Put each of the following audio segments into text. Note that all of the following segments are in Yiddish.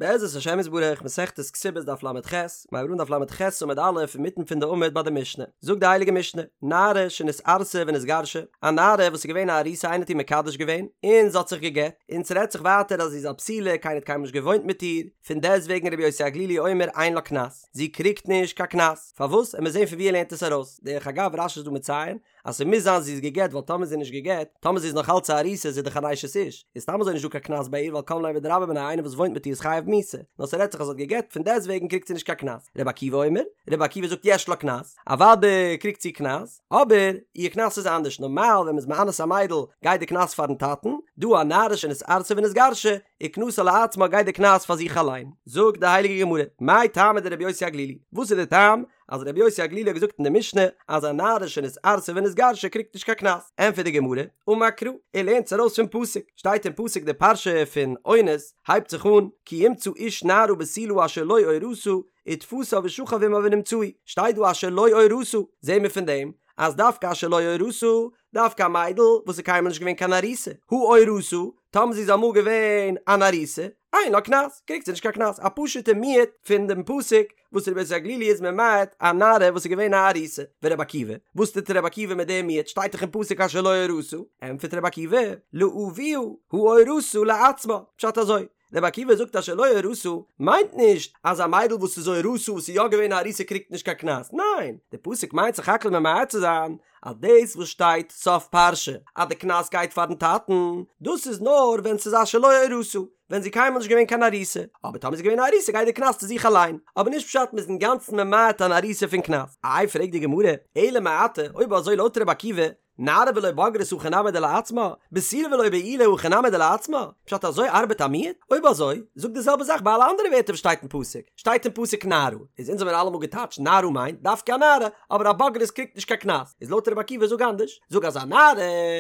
בעזרת השם יתברך, מסכת כתובות דף ל"ח, מיר הייבן אן דף ל"ח עמוד א' אינמיטן פון די עמוד ביי די משנה, זאגט די הייליגע משנה, נערה שנתארסה ונתגרשה, א נערה וואס איז געווען א ארוסה איינער האט איר מקדש געווען, און זי האט זיך גע'גט, און ס'רעדט זיך ווייטער אז זי איז א בתולה, קיינער האט קיינמאל נישט געוואוינט מיט איר, פון דעסטוועגן רבי יוסי הגלילי אומר אין לה קנס, זי קריגט נישט קיין קנס, פארוואס? עמיר זען פון ווי ער לערנט עס ארויס, דרך אגב רש"י איז דא מציין, אז ס'מוז זיין זי איז גע'גט ווייל טאמער זי איז נישט גע'גט, טאמער זי איז נאך אלץ א ארוסה איז זי דאך אן אשת איש, איז סתם אזוי נישט דא קיין קנס ביי איר ווייל קם ליה בדרבה מיניה איינער וואס וואוינט מיט איר איז חייב מיתה, נאר ס'רעדט זיך אז זי האט גע'גט פון דעסטוועגן קריגט זי נישט קיין קנס. רבי עקיבא אומר, רבי עקיבא זאגט יש לה קנס, אוודאי קריגט זי קנס, אבער איר קנס איז אנדערש, נארמאל ווען מ'איז מאנס א מיידל גייט די קנס פארן טאטן, דא א נערה שנתארסה ונתגרשה, וקנסה לעצמה גייט די קנס פאר זיך אליין. זאגט די הייליגע גמרא, מאי טעמא דרבי יוסי הגלילי, וואס איז די טעם אז רבי יוסי הגלילי האט געזאגט אין די משנה אז א נערה שנתארסה ונתגרשה קריגט נישט קיין קנס, ענטפערט די גמרא, אמר קרא, ער לערנט עס ארויס פון פסוק, שטייט אין פסוק די פרשה פון אונס הייבט זיך אן, כי ימצא איש נערה בתולה אשר לא אורשה, ותפשה ושכב עמה ונמצאו, שטייט דא אשר לא אורשה, זעהן מיר פון דעם אז דווקא אשר לא אורשה, דווקא א מיידל וואס איז קיינמאל נישט געווען קיין ארוסה, הא אורשה, טאמער זי איז אמאל געווען אן ארוסה, אין לה קנס, קריגט זי נישט קיין קנס, א פשוטע מיעוט פון דעם פסוק וואס רבי יוסי הגלילי איז ממעט א נערה וואס איז געווען א ארוסה, ורבי עקיבא, וואס טוט רבי עקיבא מיט דעם מיעוט, שטייט דאך אין פסוק אשר לא אורשה, ענטפערט רבי עקיבא, לאביה הא אורשה לעצמה, פשט אזוי, רבי עקיבא זאגט אשר לא אורשה מיינט נישט אז א מיידל וואס איז אורשה וואס איז יא געווען א ארוסה קריגט נישט קיין קנס, ניין, די פסוק מיינט סך הכל ממעט צו זיין אז דאס וואס שטייט סוף פרשה אז די קנס גייט פארן טאטן, דאס איז נאר ווען ס'איז אשר לא אורשה, ווען זי קיינמאל נישט געווען קיין ארוסה, אבער טאמער זי איז געווען א ארוסה גייט די קנס צו זיך אליין, אבער נישט פשט מ'איז אינגאנצן ממעט אן ארוסה פון קנס. איי פרעגט די גמרא, אלא מעתה, אויב אזוי לויט רבי עקיבא, נערה ולא בוגרת הכי נמי דלעצמה, בתולה ולא בעולה הכי נמי דלעצמה, פשט אזוי ארבעט א מיעוט? אויב אזוי, זאג די זעלבע זאך ביי אלע אנדערע ווערטער וואס שטייט אין פסוק, שטייט אין פסוק נערה, איז אונז האבן אלעמאל געטייטשט נערה מיינט דווקא א נערה, אבער א בוגרת קריגט נישט קיין קנס, איז לויט רבי עקיבא זאג אנדערש, זאג אז א נערה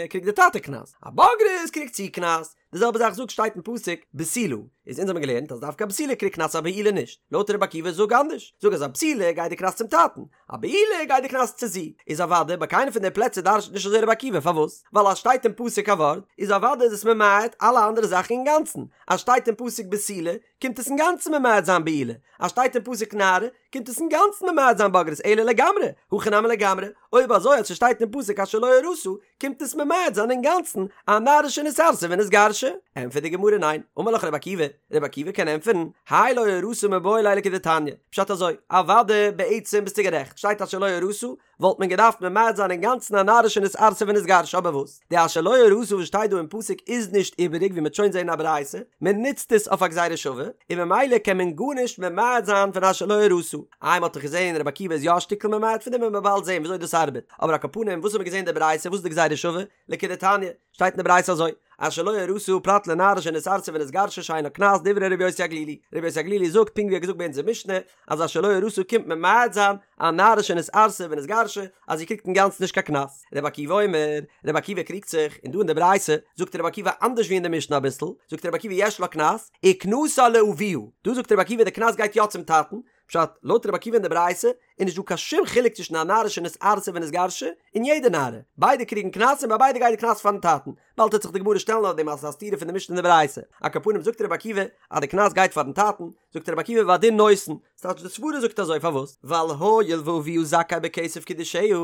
קריגט די טאטע קנס, א בוגרת קריגט זי קנס, די זעלבע זאך זאג שטייט אין פסוק בתולה, איז אונז האבן געלערנט אז דווקא א בתולה קריגט קנס א בעולה נישט, לויט רבי עקיבא זאג אנדערש, זאג אז א בתולה גייט די קנס צום טאטן, א בעולה גייט די קנס צו זי, איז אוודאי ביי קיינע פון די פלעצער דרש'נט נישט אזוי רבי עקיבא, פארוואס? ווייל אז שטייט אין פסוק א ווארט, איז אוודאי איז עס ממעט אלע אנדערע זאכן אינגאנצן, אז שטייט אין פסוק בתולה, קומט עס אינגאנצן ממעט זיין בעולה, אז שטייט אין פסוק נערה, קומט עס אינגאנצן ממעט זיין בוגרת, אלא לגמרי, הכי נמי לגמרי, אויב אזוי אז ס'שטייט אין פסוק אשר לא אורשה, קומט עס ממעט זיין אינגאנצן א נערה שנתארסה ונתגרשה? ענטפערט די גמרא ניין, אמר לך רבי עקיבא, רבי עקיבא קען ענטפערן, האי לא אורשה מיבעי ליה לכדתניא, פשט אזוי, אוודאי בעצם ביסטו גערעכט, שטייט אשר לא אורשה, וואלט מען געדארפט ממעט זיין אינגאנצן א נערה שנתארסה ונתגרשה אבער וואס, די אשר לא אורשה וואס שטייט דא אין פסוק איז נישט איבעריג ווי מ'וועט שוין זעהן אין א ברייתא, מען נוצט עס אויף א גזירה שווה, און ממילא קען מען גארנישט ממעט זיין פון אשר לא אורשה. איי מ'האט דאך געזעהן רבי עקיבא איז יא א שטיקל ממעט פון דעם וועט מען באלד זעהן וויאזוי דאס ארבעט, אבער על כל פנים וואס האט מען געזעהן אין די ברייתא וואס איז די גזירה שווה? לכדתניא, שטייט אין די ברייתא אזוי, אשר לא אורשה פרט לנערה שנתארסה ונתגרשה שאין לה קנס דברי רבי יוסי הגלילי, רבי יוסי הגלילי זאגט פונקט ווי ער האט געזאגט ביי אונזער משנה אז אשר לא אורשה קומט ממעט זיין א נערה שנתארסה ונתגרשה אז זי קריגט אינגאנצן נישט קיין קנס, רבי עקיבא אומר, רבי עקיבא קריגט זיך, און דא אין די ברייתא זאגט רבי עקיבא אנדערש ווי אין די משנה אביסל, זאגט רבי עקיבא יש לה קנס, וקנסה לאביה, דא זאגט רבי עקיבא די קנס גייט יא צום טאטן, פשט, לויט רבי עקיבא אין די ברייתא איז נישט דא קיין שום חילוק צווישן א נערה שנתארסה ונתגרשה און יעדע נערה, ביידע קריגן קנס און ביי ביידע גייט די קנס פארן טאטן, באלד וועט זיך די גמרא שטעלן אויף דעם אז עס איז א סתירה פון די משנה און די ברייתא, על כל פנים זאגט רבי עקיבא אז די קנס גייט פארן טאטן, זאגט רבי עקיבא והדין נותן, ס'טייטש די סברא זאגט אזוי פארוואס? ווייל הואיל ואביה זכאי בכסף קידושיה,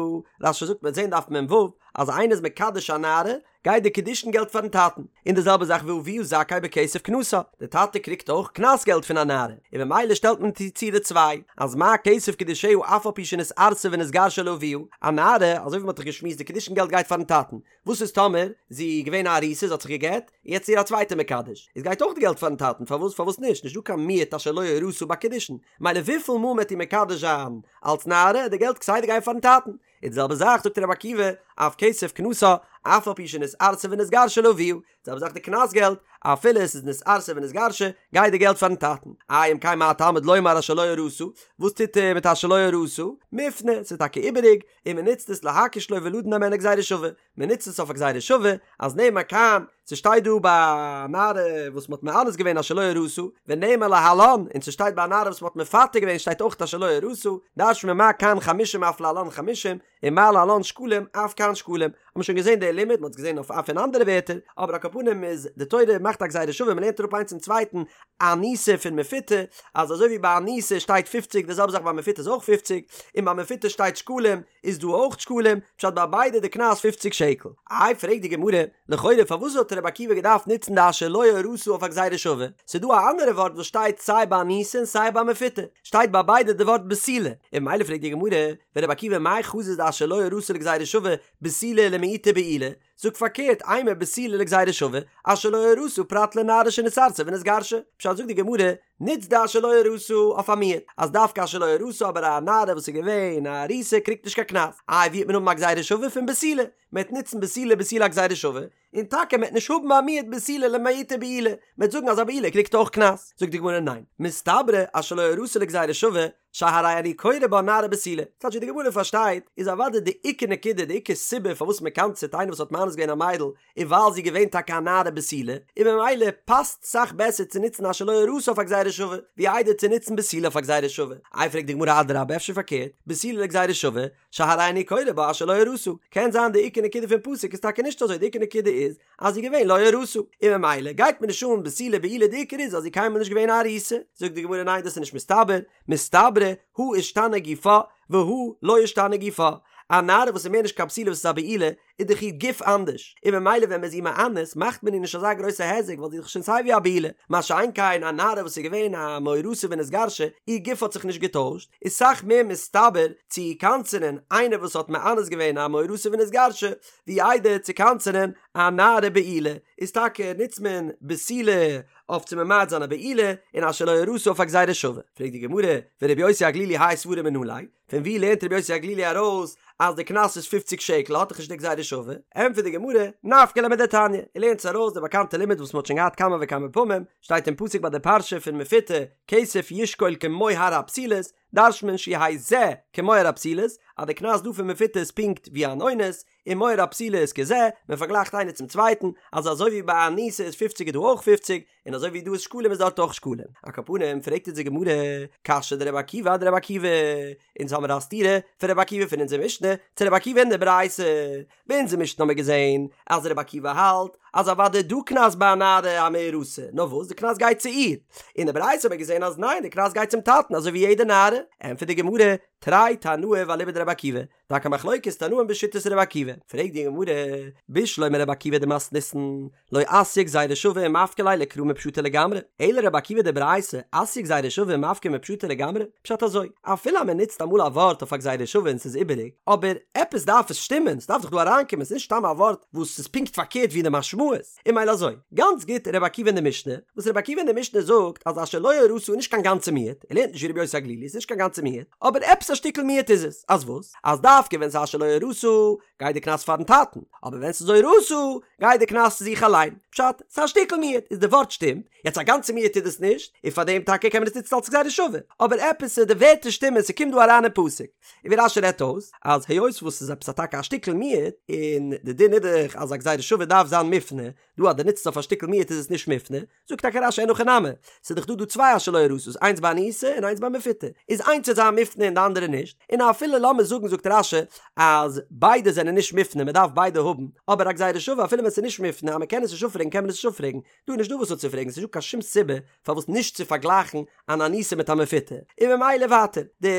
רש"י זאגט מ'וועט זען דף מ"ו אז איינער איז מקדש א נערה גייט די קידושין געלט פארן טאטן, און די זעלבע זאך ואביה זכאי בכסף קנסה, די טאטע קריגט אויך קנס געלט פון א נערה, און ממילא שטעלט מען צו די צוויי, אז מה כסף קידושיה אף על פי שנתארסה ונתגרשה לאביה, א נערה, אזוי ווי מען האט דאך געשמועסט די קידושין געלט גייט פארן טאטן, וואס איז טאמער זי איז געווען א ארוסה זי האט זיך גע'גט, און יעצט איז איר א צווייטער מקדש, איז גייט אויך די געלט פארן טאטן, פארוואס פארוואס נישט, נישט דא קיין מיעוט אשר לא אורשה ביי קידושין, מילא וויפיל מאל מען וועט איר מקדש זיין אלץ נערה, די געלט כסדר גייט פארן טאטן, און די זעלבע זאך זאגט רבי עקיבא, אף כסף קנסה, אף על פי שנתארסה ונתגרשה לאביה, די זעלבע זאך די קנס געלט, אפילו עס איז נתארסה ונתגרשה, גייט די געלט פארן טאטן. איי אם כן מה תלמוד לומר אשר לא אורשה, וואס טוט ער מיט אשר לא אורשה? מופנה, ס'איז טאקע איבעריג, און מען נוצט עס להקיש לו ולדון הימנה גזירה שווה, מען נוצט עס אויף א גזירה שווה, אז נאמר כאן, ס'שטייט דא ביי א נערה וואס מ'האט מאנס געווען אשר לא אורשה, ונאמר להלן, און ס'שטייט ביי א נערה וואס מ'האט מפתה געווען שטייט אויך אשר לא אורשה, דרש'נט מען מה כאן חמישים אף להלן חמישים, און מה להלן שקלים אף כאן שקלים. האט מען שוין געזען די לימוד, מ'האט עס געזען אויף אויף אין אנדערע ווערטער, אבער על כל פנים איז די תורה מאכט א גזירה שווה מ'לערנט אראפ איינס צום צווייטן אנוסה פון מפותה, אז אזוי ווי ביי אנוסה שטייט פופציג די זעלבע זאך ביי מפותה איז אויך פופציג, און ביי מפותה שטייט שקלים איז דא אויך שקלים, פשט ביי ביידע די קנס פופציג שקל. איי פרעגט די גמרא, לכאורה פארוואס האט רבי עקיבא געדארפט נוצן די אשר לא אורשה אויף א גזירה שווה? ס'איז דא א אנדערע ווארט וואס שטייט סיי ביי אנוסה און סיי ביי מפותה, שטייט ביי ביידע די ווארט בתולה, און ממילא פרעגט די גמרא, ורבי עקיבא מאי חזית דאשר לא אורשה לגזירה שווה בתולה למעוטי בעילה, זאג פארקערט אימא בתולה לגזירה שווה, אשר לא אורשה פרט לנערה שנתארסה ונתגרשה, פשט זאגט די גמרא, נוץ די אשר לא אורשה אויף א מיעוט, אז דווקא אשר לא אורשה אבער א נערה וואס איז געווען א ארוסה קריגט נישט קיין קנס, איי ווי וועט מען האבן א גזירה שווה פון בתולה, מען וועט נוצן בתולה בתולה א גזירה שווה, און טאקע מען וועט נישט האבן א מיעוט בתולה למעוטי בעילה, מען וועט זאגן אז א בעולה קריגט אויך קנס, זאגט די גמרא ניין, מסתברא אשר לא אורשה לגזירה שווה, שהרי אני קורא בה נערה בתולה. ס'טייטש ווי די גמרא פארשטייט, איז אוודאי די עיקר נקודה, די עיקר סיבה פארוואס מען קנס'עט איינער וואס האט מאנס געווען א מיידל, איז ווייל זי איז געווען טאקע א נערה בתולה, און ממילא פאסט סאך בעסער צו נוצן אשר לא אורשה אויף א גזירה שווה, ווי איידער צו נוצן בתולה אויף א גזירה שווה. איי פרעגט די גמרא אדרבה אפשר פארקערט, בתולה לגזירה שווה, שהרי אני קורא בה אשר לא אורשה. קען זיין די עיקר נקודה פון פסוק איז טאקע נישט אזוי, די עיקר נקודה איז, אז זי איז געווען לא אורשה, און ממילא גייט מיר נישט אן בתולה בעולה די עיקר איז אז זי איז קיינמאל נישט געווען א ארוסה, זאגט די גמרא ניין דאס איז נישט מסתבר, מסתברא הא אישתני גופה והא לא אישתני גופה, א נערה וואס איז מער נישט קיין בתולה וואס איז א בעולה איז דאך איר גוף אנדערש, און ממילא ווען מען איז איר מאנס מאכט מען איר נישט אזא גרויסע היזק ווייל זי איז דאך שוין סיי ווי א בעולה, מה שאין כן א נערה וואס איז געווען א מאורסה ונתגרשה, איר גוף האט זיך נישט געטוישט, איז סאך מער מסתבר צו קנס'ענען איינער וואס האט מאנס געווען א מאורסה ונתגרשה, ווי איידער צו קנס'ענען א נערה בעולה, איז טאקע נוצט מען בתולה אויף צו ממעט זיין א בעולה, און אשר לא אורשה אויף א גזירה שווה. פרעגט די גמרא, ורבי יוסי הגלילי האי סברא מנא ליה, פון ווי לערנט רבי יוסי הגלילי ארויס אז די קנס איז פופציג שקל האט דאך נישט די גזירה שווה? ענטפערט די גמרא, נפקא ליה מדתניא, ער לערנט עס ארויס די באקאנטע לימוד וואס מען האט שוין געהאט כמה וכמה פעמים, שטייט אין פסוק ביי די פרשה פון מפותה, כסף ישקול כמוהר הבתולות, דרש'נט מען שיהא זה כמוהר הבתולות, אז די קנס דא פון מפותה איז פונקט ווי אן אונס, און מוהר הבתולות כזה, מען פארגלייכט איינער צום צווייטן, אז אזוי ווי ביי אנוסה איז פופציג איז דא אויך פופציג, און אזוי ווי דא איז שקלים איז דארט אויך שקלים. על כל פנים פרעגט אונז די גמרא, קשיא דרבי עקיבא אדרבי עקיבא, אונז האמיר א סתירה פון רבי עקיבא פון אונזער משנה צו רבי עקיבא אין די ברייתא, ביי אונזער משנה האמיר געזען אז רבי עקיבא האלט אז אוודאי דא קנס ביי א נערה המאורסה, נאר וואס די קנס גייט צו איר, אין די ברייתא האמיר געזען אז ניין די קנס גייט צום טאטן אזוי ווי יעדע נערה, ענטפערט די גמרא, תרי תנאי ואליבא דרבי עקיבא, טאקע מחלוקת תנאים בשיטת רבי עקיבא, פרעגט די גמרא, בשלמא רבי עקיבא דמתניתין, לא אתיא גזירה שווה ומפקא ליה לקרא מפשטא לגמרי, אלא רבי עקיבא דברייתא, אתיא גזירה שווה ומפקא מפשטא לגמרי, פשט אזוי, אפילו אז מען נוצט אמאל א ווארט אויף א גזירה שווה און ס'איז איבעריג, אבער עפעס דארף עס שטימען, ס'דארף דאך דא אריינקומען, ס'איז נישט סתם א ווארט וואס איז פונקט פארקערט ווי די משמעות. און ממילא אזוי, גאנץ גוט רבי עקיבא אין די משנה, וואס רבי עקיבא אין די משנה זאגט אז אשר לא אורשה איז נישט קיין גאנצע מיעוט, ער לערנט נישט ווי רבי יוסי הגלילי, ס'איז נישט קיין גאנצע מיעוט, אבער עפעס א שטיקל מיעוט איז עס, אז וואס? אז דווקא ווען ס'איז אשר לא אורשה גייט די קנס פארן טאטן, אבער ווען ס'איז אורשה גייט די קנס צו זיך אליין, פשט, ס'איז א שטיקל מיעוט, איז די ווארט שטימט, יעצט א גאנצע מיעוט איז עס נישט, און פארדעם טאקע קען מען עס נוצן אלס גזירה שווה, אבער עפעס די ווערטער שטימען, ס'קומט דא אריין אין פסוק. און ווי רש"י רעדט אויס אז היות וואס ס'איז עפעס א טאקע א שטיקל מיעוט, און די דין איז דאך אז א גזירה שווה דארף זיין מופנה, דא אז דו נוצט עס אויף א שטיקל מיעוט איז עס נישט מופנה, זאגט טאקע רש"י אין הכי נמי, ס'איז דאך דא דא צוויי אשר לא אורשה'ס איינס ביי אנוסה און איינס ביי מפותה, איז איינס וועט זיין מופנה און די אנדערע נישט, און אפילו לאמיר זאגן זאגט רש"י אז ביידע זענען נישט מופנה מען דארף ביידע האבן, אבער א גזירה שווה אפילו ווען ס'איז נישט מופנה אז מען קען עס נישט אפפרעגן קען מען עס נישט אפפרעגן, דא איז נישט דא וואס אפצופרעגן, ס'נישט דא קיין שום סיבה פארוואס נישט צו פארגלייכן אן אנוסה מיט א מפותה, און ממילא ווייטער, די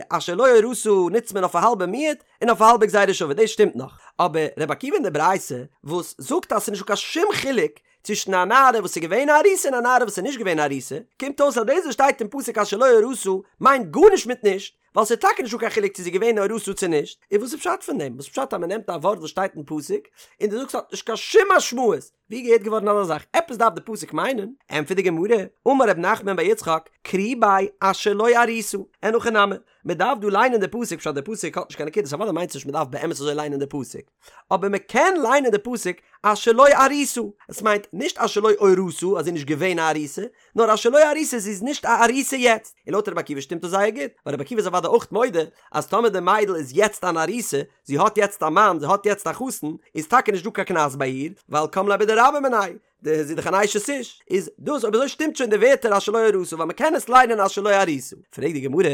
אשר לא אורשה נוצט מען אויף א האלבע מיעוט און אויף א האלבע גזירה שווה, דאס שטימט נאך, אבער רבי עקיבא אין די ברייתא וואס זאגט אז ס'איז נישט דא קיין שום חילוק צווישן א נערה וואס איז געווען א ארוסה און א נערה וואס איז נישט געווען א ארוסה, קומט אויס אז דאס וואס שטייט אין פסוק אשר לא אורשה מיינט גארנישט מיט נישט, ווייל ס'איז טאקע נישטא קיין חילוק צו זי איז געווען אורשה צו נישט, און וואס איז פשט פון דעם? וואס איז פשט אז מ'נעמט א ווארט וואס שטייט אין פסוק און דו זאגסט ס'האט נישט קיין שום משמעות? ווי געהערט געווארן אזא זאך? עפעס דארף די פסוק מיינען? ענטפערט די גמרא, אמר ר' נחמן בר יצחק, קרי ביה אשר לא ארוסה, אין הכי נמי, מען דארף דא ליינען די פסוק, פשט די פסוק האט נישט קיין נקודות, אוודאי מיינט עס נישט מען דארף באמת אזוי ליינען די פסוק, אבער מען קען ליינען די פסוק אשר לא ארוסה, עס מיינט נישט אשר לא אורשה אז זי איז נישט געווען א ארוסה, נאר אשר לא ארוסה זי איז נישט א ארוסה יעצט, און לויט רבי עקיבא שטימט עס זייער גוט, ווייל רבי עקיבא איז אוודאי אויך מודה אז טאמער די מיידל איז יעצט אן ארוסה, זי האט יעצט א מאן, זי האט יעצט א חתן, איז טאקע נישט דא קיין קנס ביי איר, ווייל קם ליה בדרבה מיניה, די זי איז דאך אן אשת איש, איז דאס אויב אזוי שטימט שוין די ווערטער אשר לא אורשה ווייל מען קען עס ליינען אשר לא ארוסה. פרעגט די גמרא,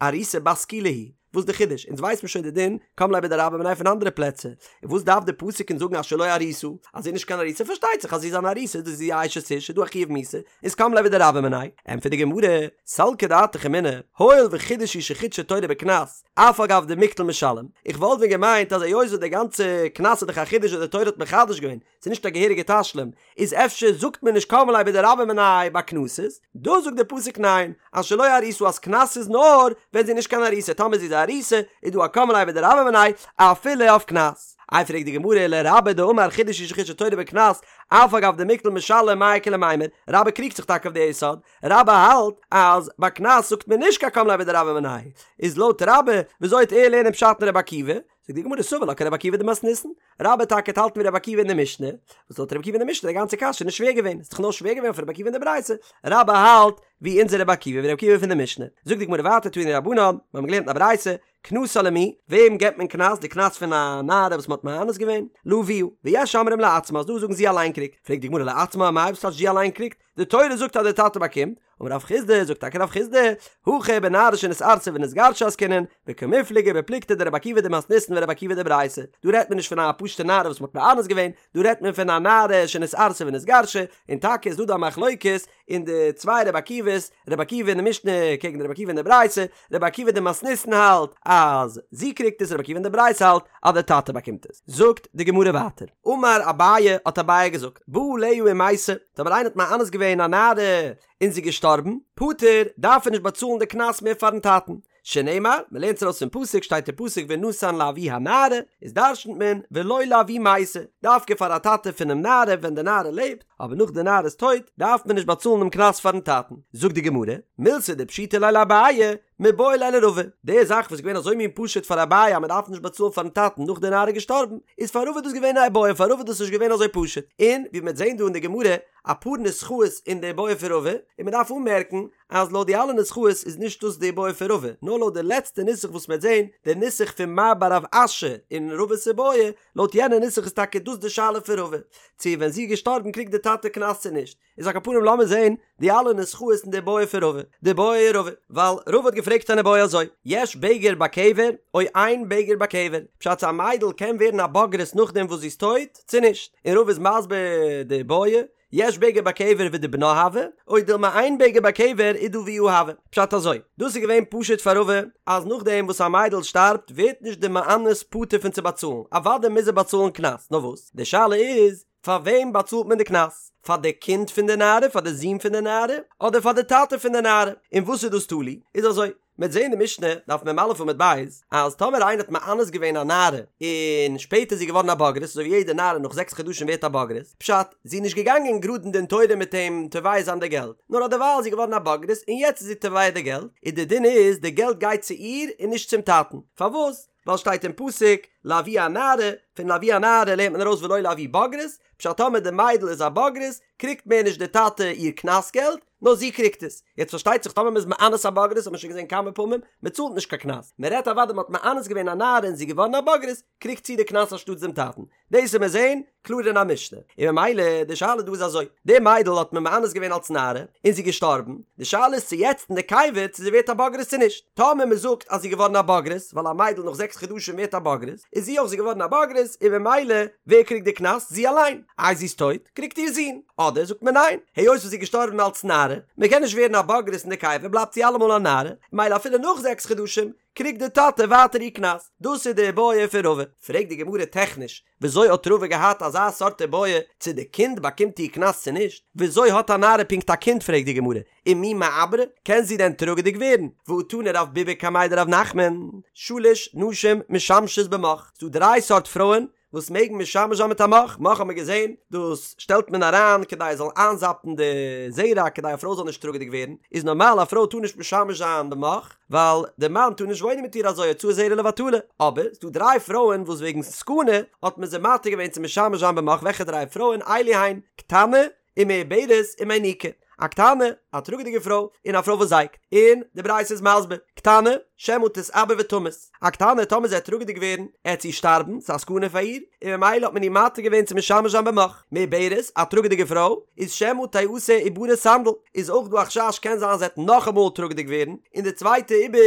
ארוסה בת סקילה היא? וואס די חידוש? אונז ווייסט מען שוין די דין קם ליה בדרבה מיניה פון אנדערע פלעצער, און וואס דארף די פסוק אונז זאגן אשר לא ארוסה, אז זי איז נישט קיין ארוסה פארשטייט זיך אז זי איז אן ארוסה איז דאס זי א אשת איש איז דא א חיוב מיתה, איז קם ליה בדרבה מיניה. ענטפערט די גמרא, סלקא דעתך אמינא, הואיל וחידוש הוא שחידשה תורה בקנס, אף על גב דמיקטל משלם, איך וואלט ווען געמיינט אז היות וואס די גאנצע קנס איז דאך א חידוש וואס די תורה האט מחדש געווען, ס'איז נישט א געהעריגע תשלום, איז אפשר זאגט מען נישט קם ליה בדרבה מיניה ביי קנסות? דא זאגט די פסוק ניין, אשר לא ארוסה אז קנס איז נאר ווען זי איז נישט קיין ארוסה, טאמער זי איז א ארוסה איז דא א קם ליה בדרבה מיניה אפילו אויף קנס. איי פרעגט די גמרא ולרבה דאמר חידוש הוא שחידשה תורה בקנס, אף על גב דמיקטל משלם מאי איכא למימר, רבה קריגט זיך טאקע אויף די יסוד, רבה האלט אז ביי קנס זאגט מען נישט קיין קם ליה בדרבה מיניה, איז לויט רבה וויאזוי וועט ער לערנען פשט אין רבי עקיבא? זאגט די גמרא סבר לה כרבי עקיבא דמתניתין, רבה טאקע וועט האלטן ווי רבי עקיבא אין די משנה, וואס לויט רבי עקיבא אין די משנה איז די גאנצע קשיא נישט שווער געווען, ס'איז דאך נאר שווער געווען אויף רבי עקיבא אין די ברייתא, רבה האלט ווי אונזער רבי עקיבא ווי רבי עקיבא פון די משנה, זאגט די גמרא ווייטער תנו רבנן, מיר האבן געלערנט אין א ברייתא, קנסה למי, וועם געבט מען קנס, די קנס פון א נערה וואס מ'האט מאנס געווען? לאביה, ויש אומרים לעצמה, אז דא זאגן זי אליין קריגט, פרעגט די גמרא לעצמה אמאי וואס טייטש זי אליין קריגט? די תורה זאגט אז די טאטע באקומט, אמר רב חסדא, זאגט טאקע רב חסדא, הכא בנערה שנתארסה ונתגרשה עסקינן, וקמיפלגי בפלוגתא דרבי עקיבא דמתניתין ורבי עקיבא דברייתא, דא רעדט מען נישט פון א פשוטע נערה וואס מ'האט מאנס געווען, דא רעדט מען פון א נערה שנתארסה ונתגרשה, און טאקע איז דא דא א מחלוקת אין די צוויי רבי עקיבא'ס, רבי עקיבא אין די משנה קעגן די רבי עקיבא אין די ברייתא, רבי עקיבא דמתניתין האלט אז זי קריגט עס, רבי עקיבא אין די ברייתא האלט אז די טאטע באקומט עס. זאגט די גמרא ווייטער, אמר אביי, האט אביי געזאגט, בא עליה ומתה, טאמער איינער האט מאנס געווען א נערה און זי איז געשטארבן, פטור, דארף ער נישט באצאלן די קנס מער פארן טאטן, שנאמר, מען לערנט עס ארויס פון פסוק, שטייט אין פסוק ונתן לאבי הנערה, איז דרשנ'ט מען ולא לאבי מתה, דווקא פאר א טאטע פונעם נערה ווען די נערה לעבט, אבער נאך די נערה איז טויט, דארף מען נישט באצאלן דעם קנס פארן טאטן. זאגט די גמרא, מילתא דפשיטא ליה לאביי, מיבעיא ליה לרבא, די זאך וואס איז געווען אזוי מין פשוט פאר אביי אז מען דארף נישט באצאלן פארן טאטן נאך די נערה איז געשטארבן, איז פאר רבא דאס געווען א איבעיא, פאר רבא איז דאס נישט געווען אזוי פשוט, און ווי מען וועט זען דא אין די גמרא אפאר נוסחאות אין די איבעיא פון רבא, און מען דארף אנמערקן אז לויט די אלע נוסחאות איז נישט דאס די איבעיא פון רבא, נאר לויט די לעצטע נוסח וואס מ'וועט זען, די נוסח פון מר בר רב אשי אין רבא'ס איבעיא, לויט יענע נוסח איז טאקע דאס די שאלה פון רבא, צו ווען זי איז געשטארבן קריגט די טאטע קנס צו נישט. איז על כל פנים לאמיר זען די אלע נוסחאות אין די איבעיא פון רבא, דבעי רבא, ווייל רבא האט געפרעגט אן איבעיא אזוי, יש בגר בקבר או אין בגר בקבר, פשט צו א מיידל קען ווערן א בוגרת נאכדעם וואס זי איז טויט צו נישט, און רבא איז מסביר די איבעיא, יש בגר בקבר ודבנה הוי, או דילמא אין בגר בקבר ודאביה הוי. פשט אזוי, דאס איז געווען פשוט פאר רבא, אז נאכדעם וואס א מיידל שטארבט ווערט נישט די מאנס פטור פון צו באצאלן, אוודאי מוז ער באצאלן קנס, נאר וואס? די שאלה איז, פאר וועם באצאלט מען די קנס? פאר די קינד פון די נערה, פאר די זון פון די נערה, אדער פאר די טאטע פון די נערה? און וואס איז דאס תלוי? איז אזוי, מ'וועט זעהן די משנה, דף מ"א עמוד ב', אז טאמער איינער האט מאנס געווען א נערה, און שפעטער איז זי געווארן א בוגרת, אזוי ווי יעדע נערה נאך זעקס חדשים ווערט א בוגרת, פשט, זי איז נישט געגאנגען גראד אין דין תורה מיט אים תובע זיין די געלט, נאר אדערווייל איז זי געווארן א בוגרת און יעצט איז זי תובע די געלט, און די דין איז די געלט גייט צו איר און נישט צום טאטן, פארוואס? ווייל שטייט אין פסוק לאבי הנערה, פון לאבי הנערה לערנט מען ארויס ולא לאבי בוגרת, פשט טאמער די מיידל איז א בוגרת קריגט מער נישט די טאטע איר קנס געלט, נאר זי קריגט עס. יעצט פארשטייט זיך טאמער מ'איז מאנס א בוגרת האט מען שוין געזען כמה פעמים, מ'צאלט נישט קיין קנס. מ'רעדט אוודאי מ'האט מאנס געווען א נערה און זי איז געווארן א בוגרת, קריגט זי די קנס אנשטאטס דעם טאטן. דאס וועט מען זען קלאר אין א משנה. און ממילא די שאלה דא איז אזוי, די מיידל האט מען מאנס געווען אלס נערה, און זי איז געשטארבן, די שאלה איז צו יעצט אין די קבר צו זי ווערט א בוגרת צו נישט. טאמער מ'זאגט אז זי איז געווארן א בוגרת, ווייל א מיידל נאך זעקס חדשים ווערט א בוגרת, איז זי אויך זי געווארן א בוגרת, און ממילא ווער קריגט די קנס? זי אליין. איי זי איז טויט, קריגט איר זון. אדער זאגט מען ניין, היות וואס זי איז געשטארבן אלס נערה, מען קען נישט ווערן א בוגרת אין די קבר בלייבט זי אלעמאל א נערה, ממילא אפילו נאך זעקס חדשים קריגט די טאטע ווייטער איר קנס. דאס איז די איבעיא פון רבא. פרעגט די גמרא טעכניש, וויאזוי האט רבא געהאט אזא סארט איבעיא צו די קינד באקומט איר קנס צו נישט? וויאזוי האט א נערה פונקט א קינד פרעגט די גמרא, ומי מעברא, קען זי דען טראגעדיג ווערן? והא תני רב ביבי קמיה דרב נחמן, שלש נשים משמשות במוך, ס'דא דריי סארט פרויען וואס מעגן משמש זיין מיט א מוך, מוך האט מען געזען, דאס שטעלט מען אריין כדי עס זאל איינזאפן די זרע כדי א פרוי זאל נישט טראגעדיג ווערן, איז נארמאל א פרוי טאר נישט משמש זיין במוך, ווייל די מאן טאר נישט וואוינען מיט איר אזוי הוצאת זרע לבטלה, אבער ס'דא דריי פרויען וואס וועגן סכנה האט מען זיי מתיר געווען צו משמש זיין במוך, וועלכע דריי פרויען? אלו הן, קטנה, ומעוברת ומיניקה, א קטנה, א טראגעדיגע פרוי און א פרוי וואס זייגט, און די ברייתא איז מסביר, קטנה, שמא תתעבר ותמות, א קטנה טאמער זי וועט טראגעדיג ווערן, עט זי שטארבן, ס'איז א סכנה פאר איר, און ממילא האט מען איר מתיר געווען צו משמש זיין במוך. מעוברת, א טראגעדיגע פרוי, איז שמא תעשה עוברה סנדל, איז אויך דא א חשש קען זיין זי עט נאכאמאל טראגעדיג ווערן, און די צווייטע עיבור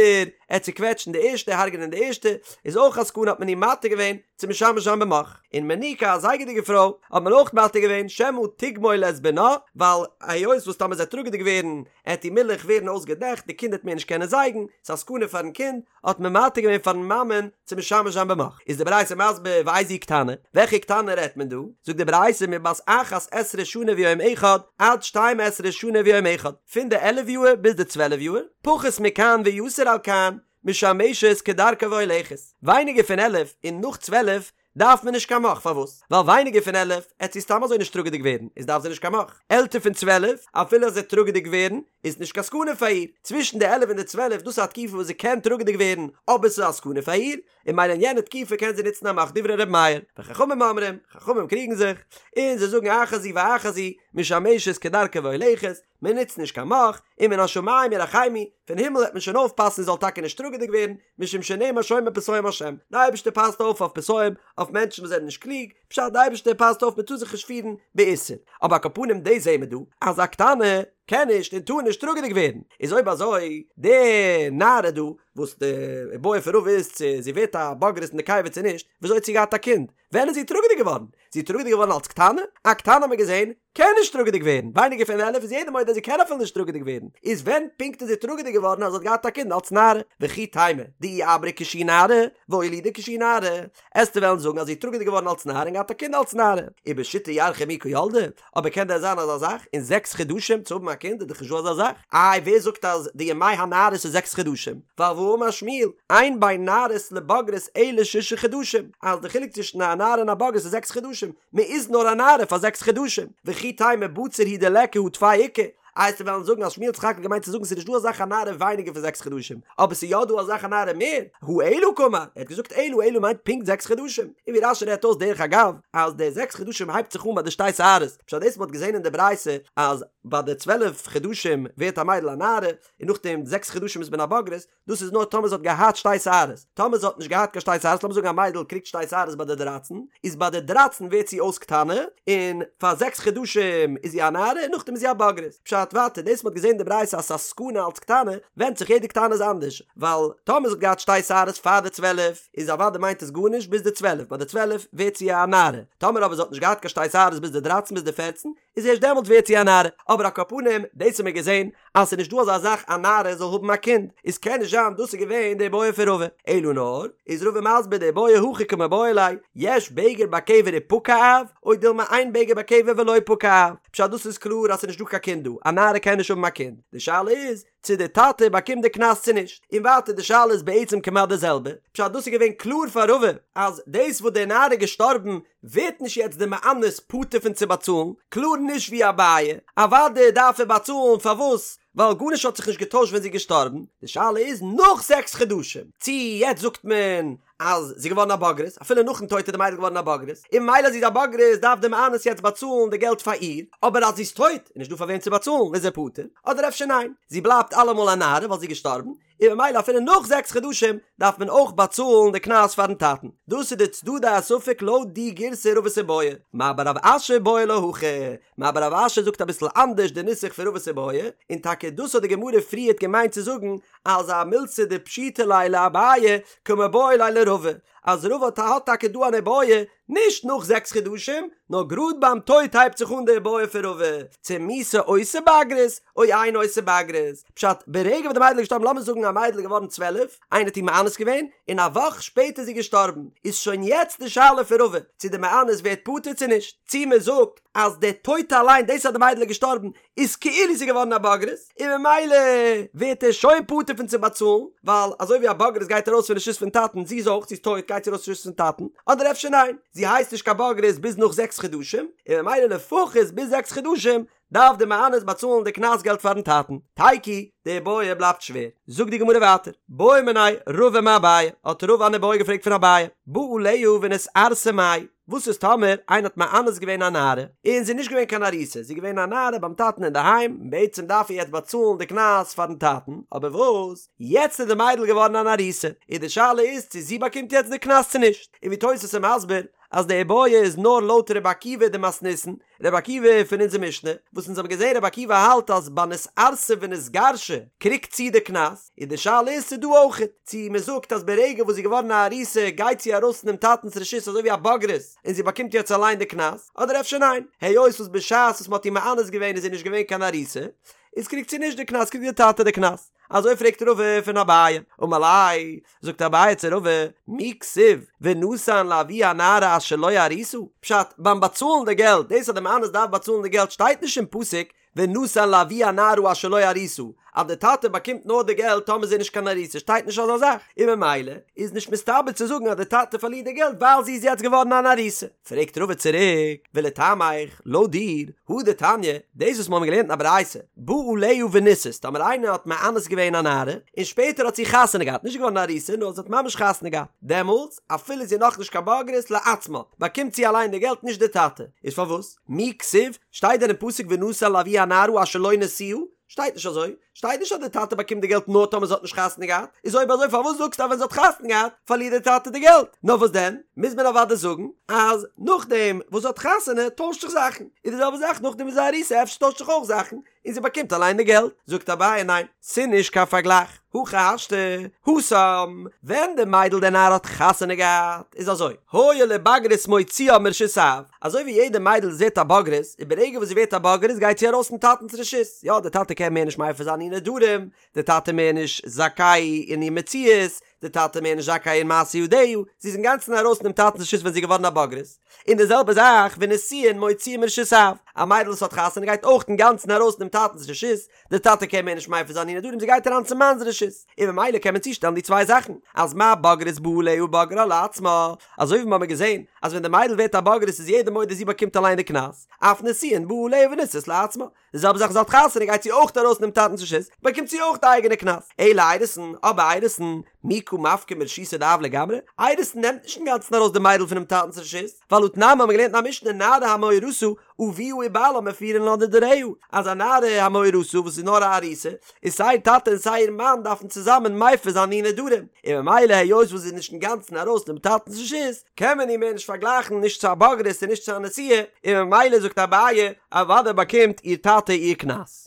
עט צוקוועטשן די ערשטע, הרג'נען די ערשטע, איז אויך א סכנה האט מען איר מתיר געווען צו משמש זיין במוך. און מניקה א זייגעדיגע פרוי האט מען אויך מתיר געווען שמא תגמול את בנה, ווייל היות וואס טאמער זי עט טראגעדיג ווערן עט איר מילך ווערן אויסגעדעכט, די קינד עט מער נישט קענען זייגן, ס'איז א סכנה פארן קינד, האט מען מתיר געווען פארן מאמען צו משמש זיין במוך. איז די ברייתא מסביר ואיזו קטנה, וועלכע קטנה רעדט מען דא? זאגט די ברייתא מבת אחת עשרה שנה ויום אחד עד שתים עשרה שנה ויום אחד, פון די עלף יאהר ביז די צוועלף יאהר, פחות מכאן ויתר על כאן, משמשת כדרכה והולכת, ווייניגער פון עלף און נאך צוועלף דארף מען נישט קיין מוך, פארוואס? ווייל ווייניגער פון עלף עט זי סתם אזוי נישט טראגעדיג ווערן, איז דארף זי נישט קיין מוך. עלטער פון צוועלף, אפילו אז זי עט טראגעדיג ווערן, איז נישט קיין סכנה פאר איר. צווישן די עלף און די צוועלף, דאס איז א תקופה וואס זי קען טראגעדיג ווערן, אבער ס'איז א סכנה פאר איר, און ממילא אין יענע תקופה קען זי נוצן א מוך דברי ר' מאיר. וחכמים אומרים, חכמים קריגן זיך, און זיי זאגן אחת זו ואחת זו, משמשת כדרכה והולכת, מען נוצט נישט קיין מוך, ומן השמים ירחמו, פון הימל וועט מען שוין אויפפאסן זי זאל טאקע נישט טראגעדיג ווערן, משום שנאמר שומר פתאים השם, די אייבערשטער פאסט אויף אויף פתאים, אויף מענטשן וואס זענען נישט קלוג, פשט די אייבערשטער פאסט אויף מען טאר זיך נישט פירן באיסור, אבער על כל פנים דאס זעהן מיר דא אז א קטנה קען נישט און טאר נישט טראגעדיג ווערן, איז אויב אזוי די נערה דא וואס די איבעיא פון רבא איז צו זי ווערט א בוגרת אין די קבר צו נישט, וויאזוי האט זי געהאט א קינד? ווען איז זי טראגעדיג געווארן? זי איז טראגעדיג געווארן אלס קטנה? א קטנה האט מען געזעהן קען נישט טראגעדיג ווערן, ווייניגער פון עלף איז יעדער מודה אז זי קען אפילו נישט טראגעדיג ווערן, איז ווען פונקט איז זי טראגעדיג געווארן אז זי האט געהאט א קינד אלס נערה? וכי תימא דאי עברה כשהיא נערה, ואולידה כשהיא נערה, עסטו וועלן זאגן אז זי איז טראגעדיג געווארן אלס נערה און געהאט א קינד אלס נערה, ובשיתא ירחי מי קא ילדה, אבער קען דען זיין אזא זאך, אין זעקס חדשים צו האבן א קינד איז דאך נישט דא אזא זאך, איי ווער זאגט אז די ימי הנערות איז זעקס חדשים, ווייל והאמר שמואל, אין בין נערות לבגרות אלא שישה חדשים, אז די חילוק צווישן א נערה און א בוגרת איז זעקס חדשים, מען איז נאר א נערה פאר זעקס חדשים, וכי תימא בציר הוא דליכא הא טפי איכא, איי עסטו וועלן זאגן אז שמואל האט סך הכל געמיינט צו זאגן ס'איז נישט דא אזא זאך א נערה ווייניגער פון זעקס חדשים, אבער ס'איז יא דא אזא זאך א נערה מער, הא אלא קאמר, ער האט געזאגט אלא, אלא מיינט פונקט זעקס חדשים, און ווי רש"י רעדט אויס דרך אגב, אז די זעקס חדשים הייבט זיך אן ביי די שתי שערות, פשט דאס מ'האט געזען אין די ברייתא אז ביי די צוועלף חדשים ווערט א מיידל א נערה, און נאכדעם זעקס חדשים איז מען א בוגרת, דאס איז נאר טאמער זי האט געהאט שתי שערות, טאמער זי האט נישט געהאט קיין שתי שערות, לאמיר זאגן א מיידל קריגט שתי שערות ביי די דרייצן, איז ביי די דרייצן ווערט זי אויס קטנה, און פאר זעקס חדשים איז זי א נערה און נאכדעם איז זי א בוגרת. פשט ווייטער, דאס מ'האט געזען אין די ברייתא אז ס'איז א סכנה אלץ קטנה, ווענדט זיך יעדע קטנה איז אנדערש, ווייל טאמער זי האט געהאט שתי שערות פאר די צוועלף, איז אוודאי מיינט עס גארנישט ביז די צוועלף, ביי די צוועלף ווערט זי א נערה, טאמער אבער זי האט נישט געהאט קיין שתי שערות ביז די דרייצן ביז די פערצן, איז ערשט דעמאלט ווערט זי א נערה, אבער על כל פנים, דאס האבן מיר געזען אז ס'איז נישט דא אזא זאך א נערה זאל האבן א קינד, איז קען נישט זיין דאס איז געווען די איבעיא פון רבא, אלא נאר, איז רבא מסביר די איבעיא הכי קמיבעיא ליה, יש בגר בקבר ופקע אב, או דילמא אין בגר בקבר ולא פקע אב, פשט דאס איז קלאר אז ס'איז נישט דא קיין קינד דא, א נערה קען נישט האבן א קינד, די שאלה איז, צו די טאטע באקומט די קנס צו נישט, און ווייטער די שאלה איז בעצם כמעט די זעלבע, פשט דאס איז געווען קלאר פאר רבא אז דאס וואס די נערה איז געשטארבן ווערט נישט יעצט די מאנס פטור פון צו באצאלן, קלאר נישט ווי אביי, אוודאי דארף ער באצאלן פארוואס ווייל גארנישט האט זיך נישט געטוישט ווען זי איז געשטארבן, די שאלה איז נאך זעקס חדשים צו יעצט זאגט מען אז זי איז געווארן א בוגרת, אפילו נאכן טויט איז די מיידל געווארן א בוגרת, און ממילא אז זי איז א בוגרת דארף די מאנס יעצט באצאלן די געלט פאר איר, אבער אז זי איז טויט איז נישט דא פאר וועם צו באצאלן איז ער פטור, אדער אפשר ניין, זי בלייבט אלעמאל א נערה ווייל זי איז געשטארבן, און ממילא אפילו נאך זעקס חדשים דארף מען אויך באצאלן די קנס פארן טאטן. דאס איז די צדדי הספק לויט די גירסא רבא'ס איבעיא. מר בר רב אשי בעי לה הכי, מר בר רב אשי זאגט אביסל אנדערש די נוסח פון רבא'ס איבעיא, און טאקע דאס האט די גמרא פריערט געמיינט צו זאגן אז א מילתא דפשיטא ליה לאביי קמיבעיא ליה לרבא, אז רבא האט טאקע דא אן איבעיא נישט נאך זעקס חדשים, נאר גראד ביים טויט הייבט זיך אן די איבעיא פון רבא, צו מיתה עושה בגרות או אינה עושה בגרות, פשט, ברגע וואס די מיידל איז געשטארבן, לאמיר זאגן א מיידל איז געווארן צוועלף, איינער האט איר מאנס געווען, און א וואך שפעטער איז זי געשטארבן, איז שוין יעצט די שאלה פון רבא, צו די מאנס ווערט פטור צו נישט, צו מען זאגט אז די טויט אליין, דאס אז די מיידל איז געשטארבן, איז כאילו זי געווארן א בוגרת, און ממילא ווערט ער שוין פטור פון צו באצאלן, ווייל אזוי ווי א בוגרת גייט ארויס פון רשות פון טאטן, זי איז אויך, זי איז טויט גייט זי ארויס פון רשות פון טאטן, אדער אפשר ניין, זי הייסט נישט קיין בוגרת ביז נאך זעקס חדשים, און ממילא לפחות ביז זעקס חדשים דארף די מאנס באצאלן די קנס געלט פארן טאטן. תיקו, די איבעיא בלייבט שווער. זאגט די גמרא ווייטער, בעא מיניה רבא מאביי, האט רבא אן איבעיא געפרעגט פון אביי, בא עליה ונתארסה מאי? וואס איז טאמער איינער האט מאנס געווען א נערה, און זי איז נישט געווען קיין ארוסה, זי איז געווען א נערה ביים טאטן אינדערהיים, און בעצם דארף ער יעצט באצאלן די קנס פארן טאטן, אבער וואס, יעצט איז די מיידל געווארן אן ארוסה, און די שאלה איז צו זי באקומט יעצט די קנס צו נישט, און ווי תוס' איז מסביר, אז די איבעיא איז נאר לויט רבי עקיבא דמתניתין, רבי עקיבא פון אונזער משנה, וואס אונז האבן געזען רבי עקיבא האלט אז ביי נתארסה ונתגרשה קריגט זי די קנס, און די שאלה איז צו דא אויכעט, צו מען זאגט אז ברגע וואס זי איז געווארן א ארוסה גייט זי ארויס פונעם טאטנ'ס רשות אזוי ווי א בוגרת און זי באקומט יעצט אליין די קנס, אדער אפשר ניין, היות וואס בשעת וואס מען האט איר מאנס געווען איז זי נישט געווען קיין ארוסה, איז קריגט זי נישט די קנס קריגט די טאטע די קנס. אזוי פרעגט רבא פון אביי, אמר ליה, זאגט אביי צו רבא, מי כתיב ונתן לאבי הנערה אשר לא ארוסה? פשט, ביים באצאלן די געלט, דאס אז די מאנס דארף באצאלן די געלט שטייט נישט אין פסוק ונתן לאבי הנערה אשר לא ארוסה, אז די טאטע באקומט נאר די געלט טאמער זי איז נישט קיין ארוסה שטייט נישט אזא זאך, און ממילא איז נישט מסתבר צו זאגן אז די טאטע פארלירט די געלט ווייל זי איז יעצט געווארן אן ארוסה. פרעגט רבא צוריק, ולטעמיך, לויט דיר, הא דתניא, דאס וואס מיר האבן געלערנט אין א ברייתא, בא עליה ונישאת, טאמער איינער האט מאנס געווען א נערה, און שפעטער האט זי חתונה געהאט, נישט געווארן ארוסה, נאר זי האט ממש חתונה געהאט, דעמאלטס, אפילו זי איז נאכנישט קיין בוגרת, לעצמה, באקומט זי אליין די געלט נישט די טאטע. איז פארוואס? מי כתיב, שטייט דען אין פסוק ונתן לאבי הנערה אשר לא נשואה? שטייט נישט אזוי, שטייט נישט אז די טאטע באקומט די געלט נאר טאמער זי האט נישט חתונה געהאט, איז אויב אזוי פארוואס זאגסטו אז ווען זי האט חתונה געהאט פארלירט די טאטע די געלט? נאר וואס דען, מוז מען אוודאי זאגן אז נאכדעם וואס זי האט חתונה טוישט זיך זאכן, איז די זעלבע זאך נאכדעם וואס זי איז ארוסה אפשר טוישט זיך אויך זאכן און זי באקומט אליין די געלט, זאגט אביי ניין, ס'נישט קיין פארגלייך, הכי השתא, התם, ווען די מיידל די נערה האט חתונה געהאט איז אזוי, הואיל ובגרות מוציאה מרשות האב, אזוי ווי יעדע מיידל וואס ווערט א בוגרת, און ברגע וואס זי ווערט א בוגרת גייט זי ארויס פון טאטנ'ס רשות, יא די טאטע קען מער נישט מפר זיין איר נדרים, די טאטע מער נישט זכאי אין איר מציאות, די טאטע מער נישט זכאי אין מעשה ידיה, זי איז אינגאנצן ארויס פונעם טאטנ'ס רשות ווען זי איז געווארן א בוגרת. און די זעלבע זאך ונישואין מוציאה מרשות האב, א מיידל וואס האט חתונה גייט אויך אינגאנצן ארויס פונעם טאטנ'ס רשות, די טאטע קען מער נישט מפר זיין איר נדרים זי גייט אריין צום מאנ'ס רשות, און ממילא קען מען צושטעלן די צוויי זאכן, אז מה בוגרת בא עליה ובגרה לעצמה, אזוי ווי מ'האמיר געזען אז ווען די מיידל ווערט א בוגרת איז יעדער מודה זי באקומט אליין די קנס, אף נישואין בא עליה ונישאת לעצמה, די זעלבע זאך זי האט חתונה גייט זי אויך ארויס פונעם טאטנ'ס רשות, באקומט זי אויך די אייגענע קנס, אלא אירוסין, אבער אירוסין, מי קא מפקי מרשותא דאב לגמרי, אירוסין נעמט נישט אינגאנצן ארויס די מיידל פונעם טאטנ'ס רשות, ווייל הא תנן מ'האמיר געלערנט אין א משנה נערה המאורסה אביה ובעלה מפירין לה נדריה, אז א נערה המאורסה וואס איז נאר א ארוסה, איז סיי איר טאטע און סיי איר מאן דארפן צוזאמען מפר זיין איר נדרים, און ממילא היות וואס זי איז נישט אינגאנצן ארויס פונעם טאטנ'ס רשות, קען מען איר מער נישט פארגלייכן נישט צו א בוגרת און נישט צו א נשואה, און ממילא זאגט אביי, אוודאי באקומט איר טאטע איר קנס.